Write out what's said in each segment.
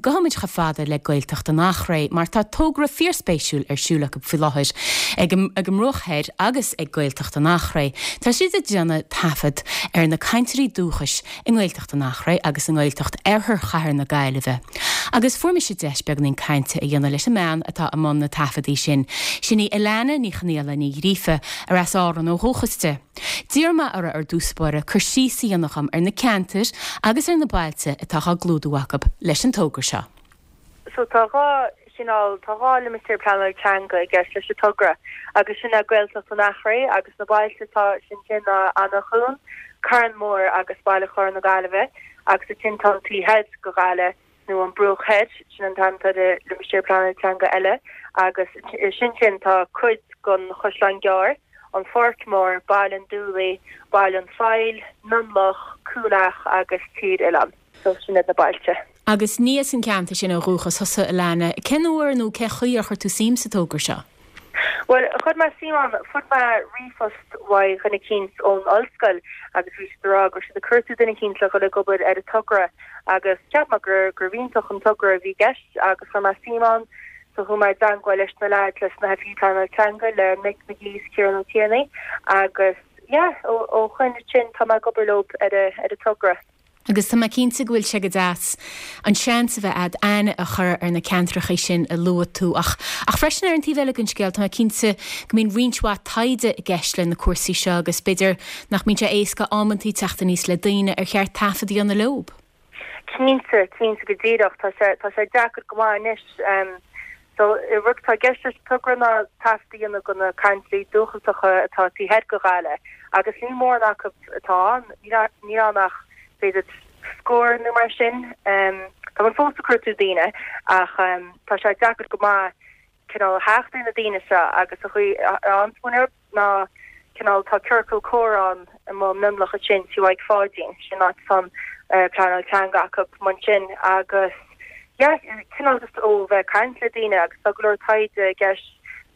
gabhfaimid chomh fada le Gaeltacht an Eachréidh mar tá togra fíorspéisiúil ar siúl acu faoi láthair ag an mBruach Thoir agus ag Gaeltacht an Eachréidh. Tá siad ag déanamh taifead ar na cainteoirí dúchais i nGaeltacht an Eachréidh agus i nGaeltacht Oirthear Chathair na Gaillimhe. Agus fuair mise deis beagáinín cainte a dhéanamh leis an mbean atá i mbun na taifeadaí sin. Sin í Alana Ní Chonaola Ní Ghríofa, ar as Árainn ó dhúchas di. D'iarr mé uirthi ar dtús báire cur síos a dhéanamh dhom ar na ceantair agus ar na bailte atá á gclúdú acu leis an togra seo. So tá 2 chineál, tá 2 limistéar pleanála teanga i gceist leis an togra agus sin é Gaeltacht an Eachréidh agus na bailte atá ansin ná Eanach Dhúin, Carn Mór agus Baile Chláir na Gaillimhe agus ansin tá an taobh thoir de Ghaillimh nó an Bruach Thoir, sin an t-ainm atá ar an limistéar pleanála teanga eile, agus ansin sin tá cuid den Chaisleán Gearr, an Pháirc Mhór, Baile an Dúlaigh, Baile an Phoill, Mionlach, Cúil Each agus Tír Oileáin. So sin iad na bailte. Agus ní as an gceantar sin ó dhúchas thusa, Alana. Cén uair nó cén chaoi ar chuir tú suim sa togra seo? Bhuel, chuir mé suim ann, fuair mé ríomhphost uaidh dhuine eicínt ón ollscoil agus bhí siad ag rá go raibh siad ag cuartú duine eicínt le dhul ag obair ar an togra agus cheap mé gur gurbh iontach an togra a bhí i gceist agus chuir mé suim ann so chuaigh mé i dteangmháil leis na leaids leis na hoifigigh pleanála teanga le Mick McGee is Ciarán Ó Tiarnaigh agus yeah ó ó shoin ansin tá mé ag obair leo ar a ar an togra. Agus tá mé cinnte go bhfuil sé go deas an seans a bheith a'd aithne a chur ar na ceantrachaí sin a luaigh tú. Ach, ach freisin ar an taobh eile den scéal, tá mé cinnte go mbíonn roinnt mhaith taighde i gceist le na cúrsaí seo agus b'fhéidir nach mbíonn sé éasca amantaí teacht aníos le daoine ar cheart taifead a dhéanamh leob. Cinnte, cinnte go díreach. Tá sé, tá sé deacair go maith anois. So, rud atá i gceist leis an togra ná taifead a dhéanamh de na cainteoirí dúchasacha atá taobh thoir de Ghaillimh agus níl mórán acu atá ann, níl ann ach b'fhéidir scór nó mar sin. Tá muid fós ag cuartú daoine ach tá sé deacair go maith cineál theacht ar na daoine seo agus an chaoi a bhfaigheann muid orthu. ná cineál tá ciorcal comhrá ann i Mionlach ansin Tí Mhaidhc Pháidín, sin áit atá an pleanáil teanga acu ansin agus yeah cineál just ó bheith ag caint le daoine agus tá go leor taighde i gceist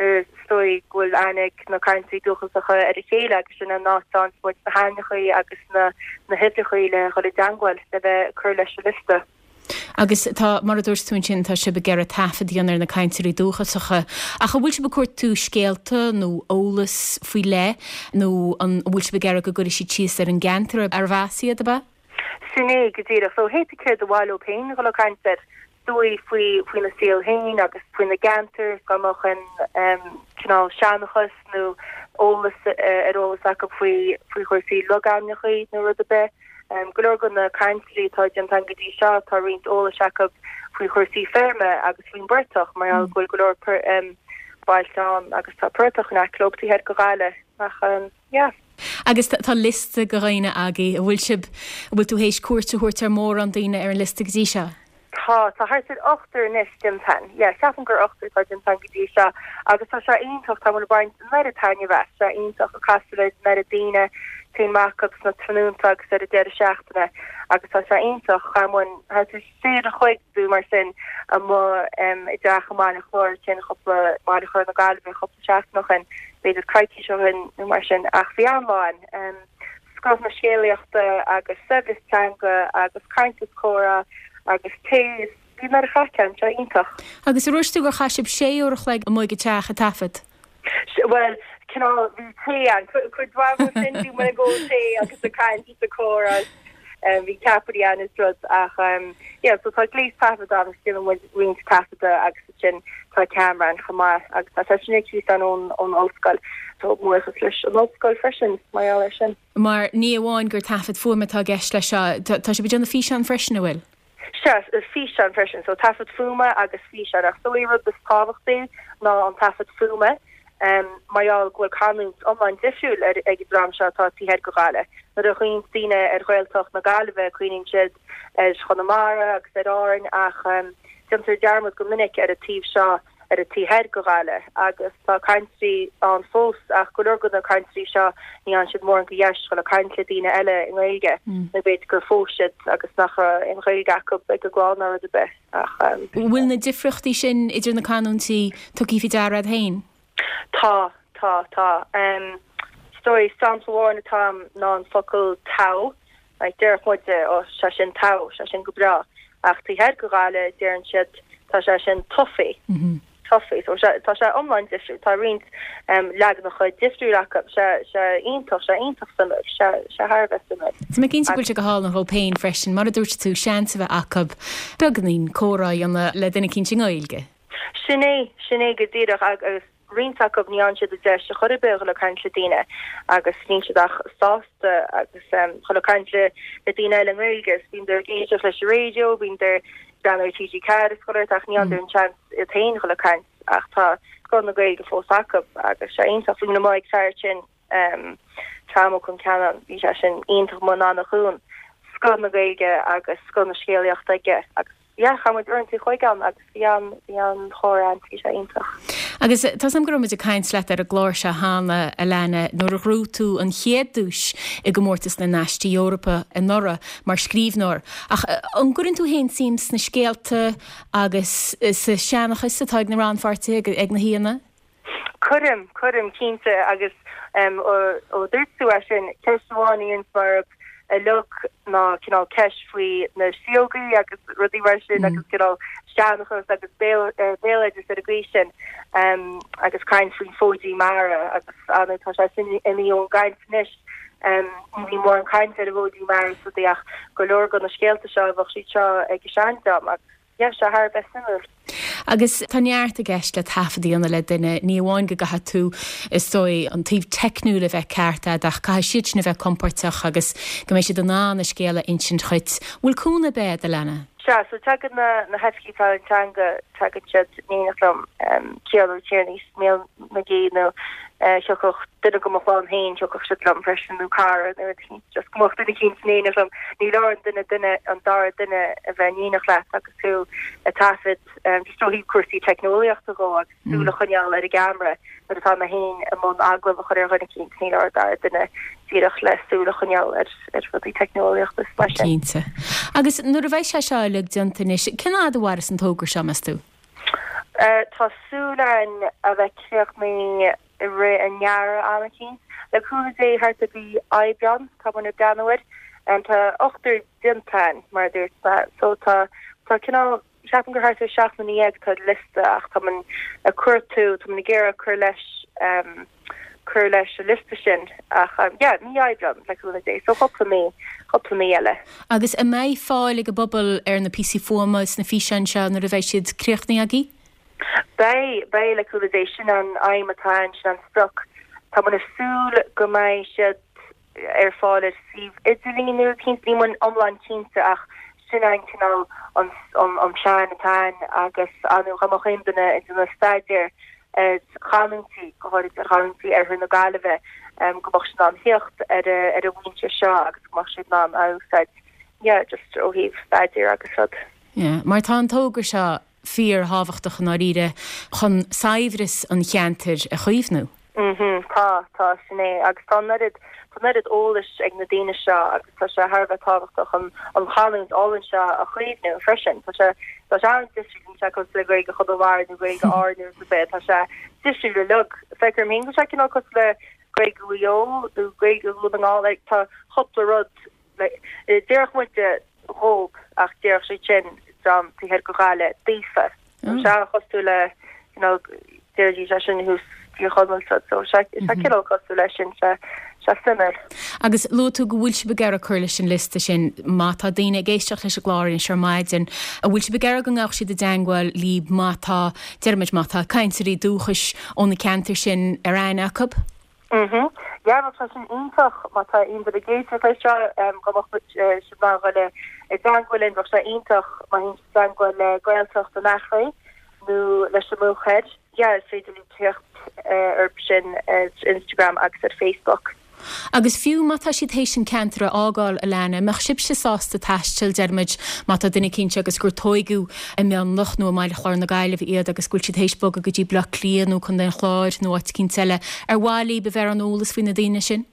is dóigh go bhfuil aithne ag na cainteoirí dúchasacha ar a chéile agus sin an áit a bhfaigheann muid na hainmneachaí agus na na huimhreachaí le dhul i dteangmháil le bheith ag cur leis an liosta. Agus tá, mar a dúirt tú ansin, tá sibh ag iarraidh taifead a dhéanamh ar na cainteoirí dúchasacha. Ach an bhfuil sibh ag cuartú scéalta nó eolas faoi leith nó an bhfuil sibh ag iarraidh go gcuirfidh siad síos ar an gceantar arbh as iad, ab ea? Sin é go díreach. So hé céard ba mhaith leo féin dhul ag caint air, is dóigh faoi faoina saol féin agus faoina gceantar, dá mbeadh aon cineál seanchas nó eolas ar eolas acu faoi faoi chúrsaí logainmneacha nó rud ar bith. Go leor de na cainteoirí atá déanta againn go dtí seo, tá roinnt eolais acu faoi chúrsaí feirme agus faoin bportach, mar gheall go bhfuil go leor bailte ann agus tá portach in aice leo taobh thoir de Ghaillimh. Ach yeah. Agus tá liosta de dhaoine agaibh, an bhfuil sibh, an bhfuil tú théis cuairt a thabhairt ar mhórán daoine ar an liosta go dtí seo? Tá, tá thart ar ochtar anois déanta againn. Yeah, ceapaim gur ochtar atá déanta againn go dtí seo agus tá sé iontach, tá muid ag baint an oiread taitneamh as, tá sé iontach ag casadh le an oiread daoine, téann amach acu sna tráthnónta agus ar an deireadh seachtaine agus tá sé iontach, chaith muid thart ar sé uair an chloig nó mar sin amuigh i dteach i mBaile Chláir ansin cúpla, Baile Chláir na Gaillimhe cúpla seachtain ó shin, b'fhéidir coicís ó shin nó mar sin ach bhí an-lá ann. Scoth na scéalaíochta agus saibhreas teanga agus caint is comhrá agus tae is bhí an oiread craic ann, sé iontach. Agus ar dhúirt tú gur chaith sibh sé uair a chloig amuigh ag an teach ag taifead? Bhuel, cineál, bhí tae ann, cuid mhaith de sin bhí muid ag ól tae agus ag caint is ag comhrá is bhí ceapairí ann is rud ach yeah so tá gléas taifeadta ann agus déanann muid roinnt taifeadta agus ansin tá ceamara ann chomh maith agus tá sé sin ar cíos ann ón ón ollscoil. So buíochas leis an ollscoil freisin mar gheall air sin. Mar ní amháin gur taifead fuaime atá i gceist leis seo, tá sibh ag déanamh físeán freisin, an bhfuil? Sea, físeán freisin. So taifead fuaime agus físeán. Ach is dóigh rud is tábhachtaí ná an taifead fuaime mar gheall go bhfuil canúint iomlán difriúil ag an dream seo atá taobh thoir de Ghaillimh. Nuair a chuimhníonn daoine ar Ghaeltacht na Gaillimhe cuimhníonn siad ar Chonamara agus ar Árainn ach déantar dearmad go minic ar an taobh seo, ar an taobh thoir de Ghaillimh agus tá cainteoirí ann fós ach go leor de na cainteoirí seo ní fhaigheann siad mórán de dheis dhul ag caint le daoine eile i nGaeilge nó b'fhéidir gur phós siad agus nach raibh aon Ghaeilge acu ag a gclann nó rud ar bith ach. An bhfuil na difríochtaí sin idir na canúintí tugtha faoi deara agat féin? Tá, tá, tá. Is dóigh sampla amháin atá agam ná an focal togha. Like, déarfadh muide, ó, sé sin togha, sé sin go breá. Ach taobh thoir de Ghaillimh deireann siad tá sé sin toffee. Toffee. So tá sé iomlán difriúil. Tá roinnt leaganacha difriúil acu. Sé sé iontach, sé iontach suimiúil. Sé sé thar a bheith suimiúil. Tá mé cinnte go bhfuil sé go hálainn dhóibh féin freisin, mar a dúirt tú, seans a bheith acu beagáinín comhrá a dhéanamh le duine eicínt i nGaeilge. Sin é, sin é go díreach agus roinnt acu ní fhaigheann siad an deis ar chor ar bith a dhul ag caint le daoine agus níl siad ach sásta agus dhul ag caint le daoine eile i nGaeilge agus bíonn ag éisteacht leis an raidió, bíonn ag breathnú ar TG4 is chuile shórt ach ní fhaigheann an seans iad féin dhul ag caint ach tá scoth na Gaeilge fós acu agus sé iontach. Bhí mé ag fear sin Tom Ó Concheanainn, bhí sé sin iontach amuigh in Eanach Dhúin, scoth na Gaeilge agus scoth na scéalaíochta aige agus yeah, chaith muid uaireanta an chloig ann agus bhí an, bhí an-chomhrá ann, bhí sé iontach. Agus tá 's agam go raibh muid ag caint leat ar an gclár seo cheana, Alana, nuair a ghnóthaigh tú an chéad duais i gcomórtas na nAistí Eorpacha anuraidh mar scríbhneoir. Ach an gcuireann tú féin suim sna scéalta agus sa seanchas atá ag na rannpháirtithe, ag na haíonna? Cuirim, cuirim, cinnte, agus ó dúirt tú é sin, ceist amháin a dhéanas mé orthu uilig ná cineál ceist faoi na síógaí agus rudaí mar sin agus cineál seanchas agus béaloideas ar an gcaoi sin agus caint faoin bhfóidín mara agus ar ndóigh tá sé sin imithe ón gcaint anois. Ní bhíonn mórán caint ar an bhfóidín mara is rudaí ach go leor de na scéalta seo bheadh siad seo ag an seandream agus Yeah, sé thar a bheith suimiúil. Agus tá neart i gceist le taifead a dhéanamh le duine, ní amháin go gcaithfidh tú, is dóigh, an taobh teicniúil a bheith ceart agat ach caithfidh siad sin a bheith compóirteach agus go mbeidh siad in ann a scéal a insint dhuit. Bhfuil cúnamh ar bith agat, Alana? Sea, so tagann na hoifigigh pleanála teanga, tagann siad in éineacht liom, Ciarán Ó Tiarnaigh is Mícheál McGee nó thiocfadh duine de mo chlann féin, thiocfadh siad liom freisin nó cara nó rud eicínt, just go mbeadh duine eicínt in éineacht liom. Ní leor an duine duine, an dara duine a bheith in éineacht leat agus tú ag taifead, just ó thaobh cúrsaí teicneolaíochta dhó agus súil a choinneáil ar an gceamara nuair atá mé féin i mbun agallamh a chur ar dhuine eicínt, ní leor an dara duine díreach le súil a choinneáil ar ar rudaí teicneolaíochta is mar sin. Cinnte. Agus nuair a bheidh sé seo uilig déanta anois, cén fhad a mhairfeas an togra seo, meas tú? Tá súil againn a bheith críochnaithe i rith an earraigh am eicínt. Le cúnamh Dé thart ar mhí Aibreán tá muid ag breathnú air. Tá ochtar déanta againn mar a dúirt mé so tá tá cineál ceapaim gur thart ar 17,000 atá ar liosta ach tá muid ag cuartú tá muid ag iarraidh cur leis cur leis an liosta sin ach yeah, mí Aibreán le cúnamh Dé, so cúpla mí, cúpla mí eile. Agus an mbeidh fáil ag an bpobal ar na píosaí fuaime is na físeáin seo nuair a bheidh siad críochnaithe agaibh? Beidh, beidh le cúnamh Dé, sin an aidhm atá ann, sin an sprioc. Tá muid ag súil go mbeidh siad ar fáil ar suíomh idirlín nó rud eicínt, níl muid iomlán cinnte ach sin an cineál an an plean atá ann agus ar ndóigh dá mbeadh aon duine ag déanamh staidéar ar chanúintí, go háirid ar chanúintí oirthear na Gaillimhe, go mbeadh siad in ann theacht ar ar an bhfoinse seo agus go mbeadh siad in ann a úsáid, yeah, just ó thaobh staidéir agus rud. Yeah, mar tá an togra seo fíor-thábhachtach i ndáiríre chun saibhreas an cheantair a chaomhnú. Mhm, tá, tá, sin é. Agus tá an oiread, tá an oiread eolais ag na daoine seo agus tá sé thar a bheith tábhachtach an, an chanúint álainn seo a chaomhnú freisin. Tá sé, tá sé an-difriúil, níl sé cosúil le Gaeilge Chonamara nó Gaeilge Árann nó rud ar bith, tá sé difriúil uilig. Feictear dom féin go bhfuil sé cineál cosúil le Gaeilge Mhaigh Eo nó Gaeilge Dhún na nGall, like, tá cúpla rud, like, déarfadh muide dhób ach déarfadh siad sin dream taobh thoir de Ghaillimh daofa. Tá sé an-chosúil le you know déarfaidís é sin thuas Tír Chonaill so so sé sé cineál cosúil leis sin sé sé suimiúil. Agus luaigh tú go bhfuil sibh ag iarraidh cur leis an liosta sin. Má tá daoine ag éisteacht leis an gclár anois ar maidin, an bhfuil sibh ag iarraidh go ngabhadh siad i dteangmháil libh má tá, déarfaimid, má tá cainteoirí dúchais ó na ceantair sin ar aithne acu? Mhm. Yeah, bheadh sé sin iontach má tá aon duine ag éisteacht leis seo, go mbeadh siad in ann dhul i dteangmháil linn, bheadh sé iontach má théann siad i dteangmháil le Gaeltacht an Eachréidh nó leis an mBruach Thoir. Yeah, is féidir libh teacht orthu sin ar Instagram agus ar Facebook. Agus fiú má tá siad théis an ceantar a fhágáil, Alana, an mbeadh sibhse sásta taisteal, déarfaimid, má tá duine eicínt agus gur tóigeadh i Mionlach nó i mBaile Chláir na Gaillimhe iad agus go bhfuil siad théis bogadh go dtí Bleá Cliath nó Contae an Chláir nó áit eicínt eile, ar mhaith libh a bheith ar an eolas faoi na daoine sin?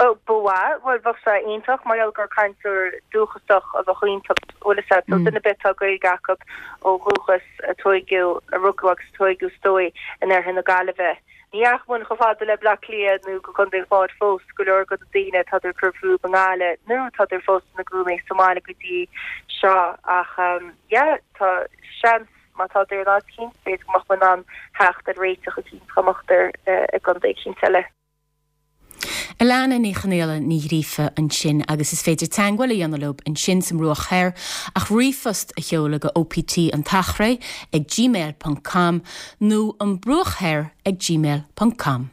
Ó, ba mhaith. Bhuel, bheadh sé iontach mar gheall gur cainteoir dúchasach a bheadh iontu, bhfuil fhios agat. So duine ar bith atá Gaeilge acu ó dhúchas, a tóigeadh, a rugadh agus a tóigeadh is dóigh in oirthear na Gaillimhe. Ní dheachaigh muid chomh fada le Bleá Cliath nó go Contae an Chláir fós, go leor de na daoine tádar ag cur fúthu i nGaillimh nó tádar fós ina gcónaí sa mbaile go dtí seo ach yeah tá seans má tádar in áit eicínt b'fhéidir go mbeadh muid in ann theacht ar réiteach eicínt dá mbeadar i gcontae eicínt eile. Alana Ní Chonaola Ní Ghríofa ansin agus is féidir teagmháil a dhéanamh leo ansin sa mBruach Thoir ach ríomhphost a sheoladh go OPT an tEachréidh ag gmail ponc com nó an Bruach Thoir ag gmail ponc com.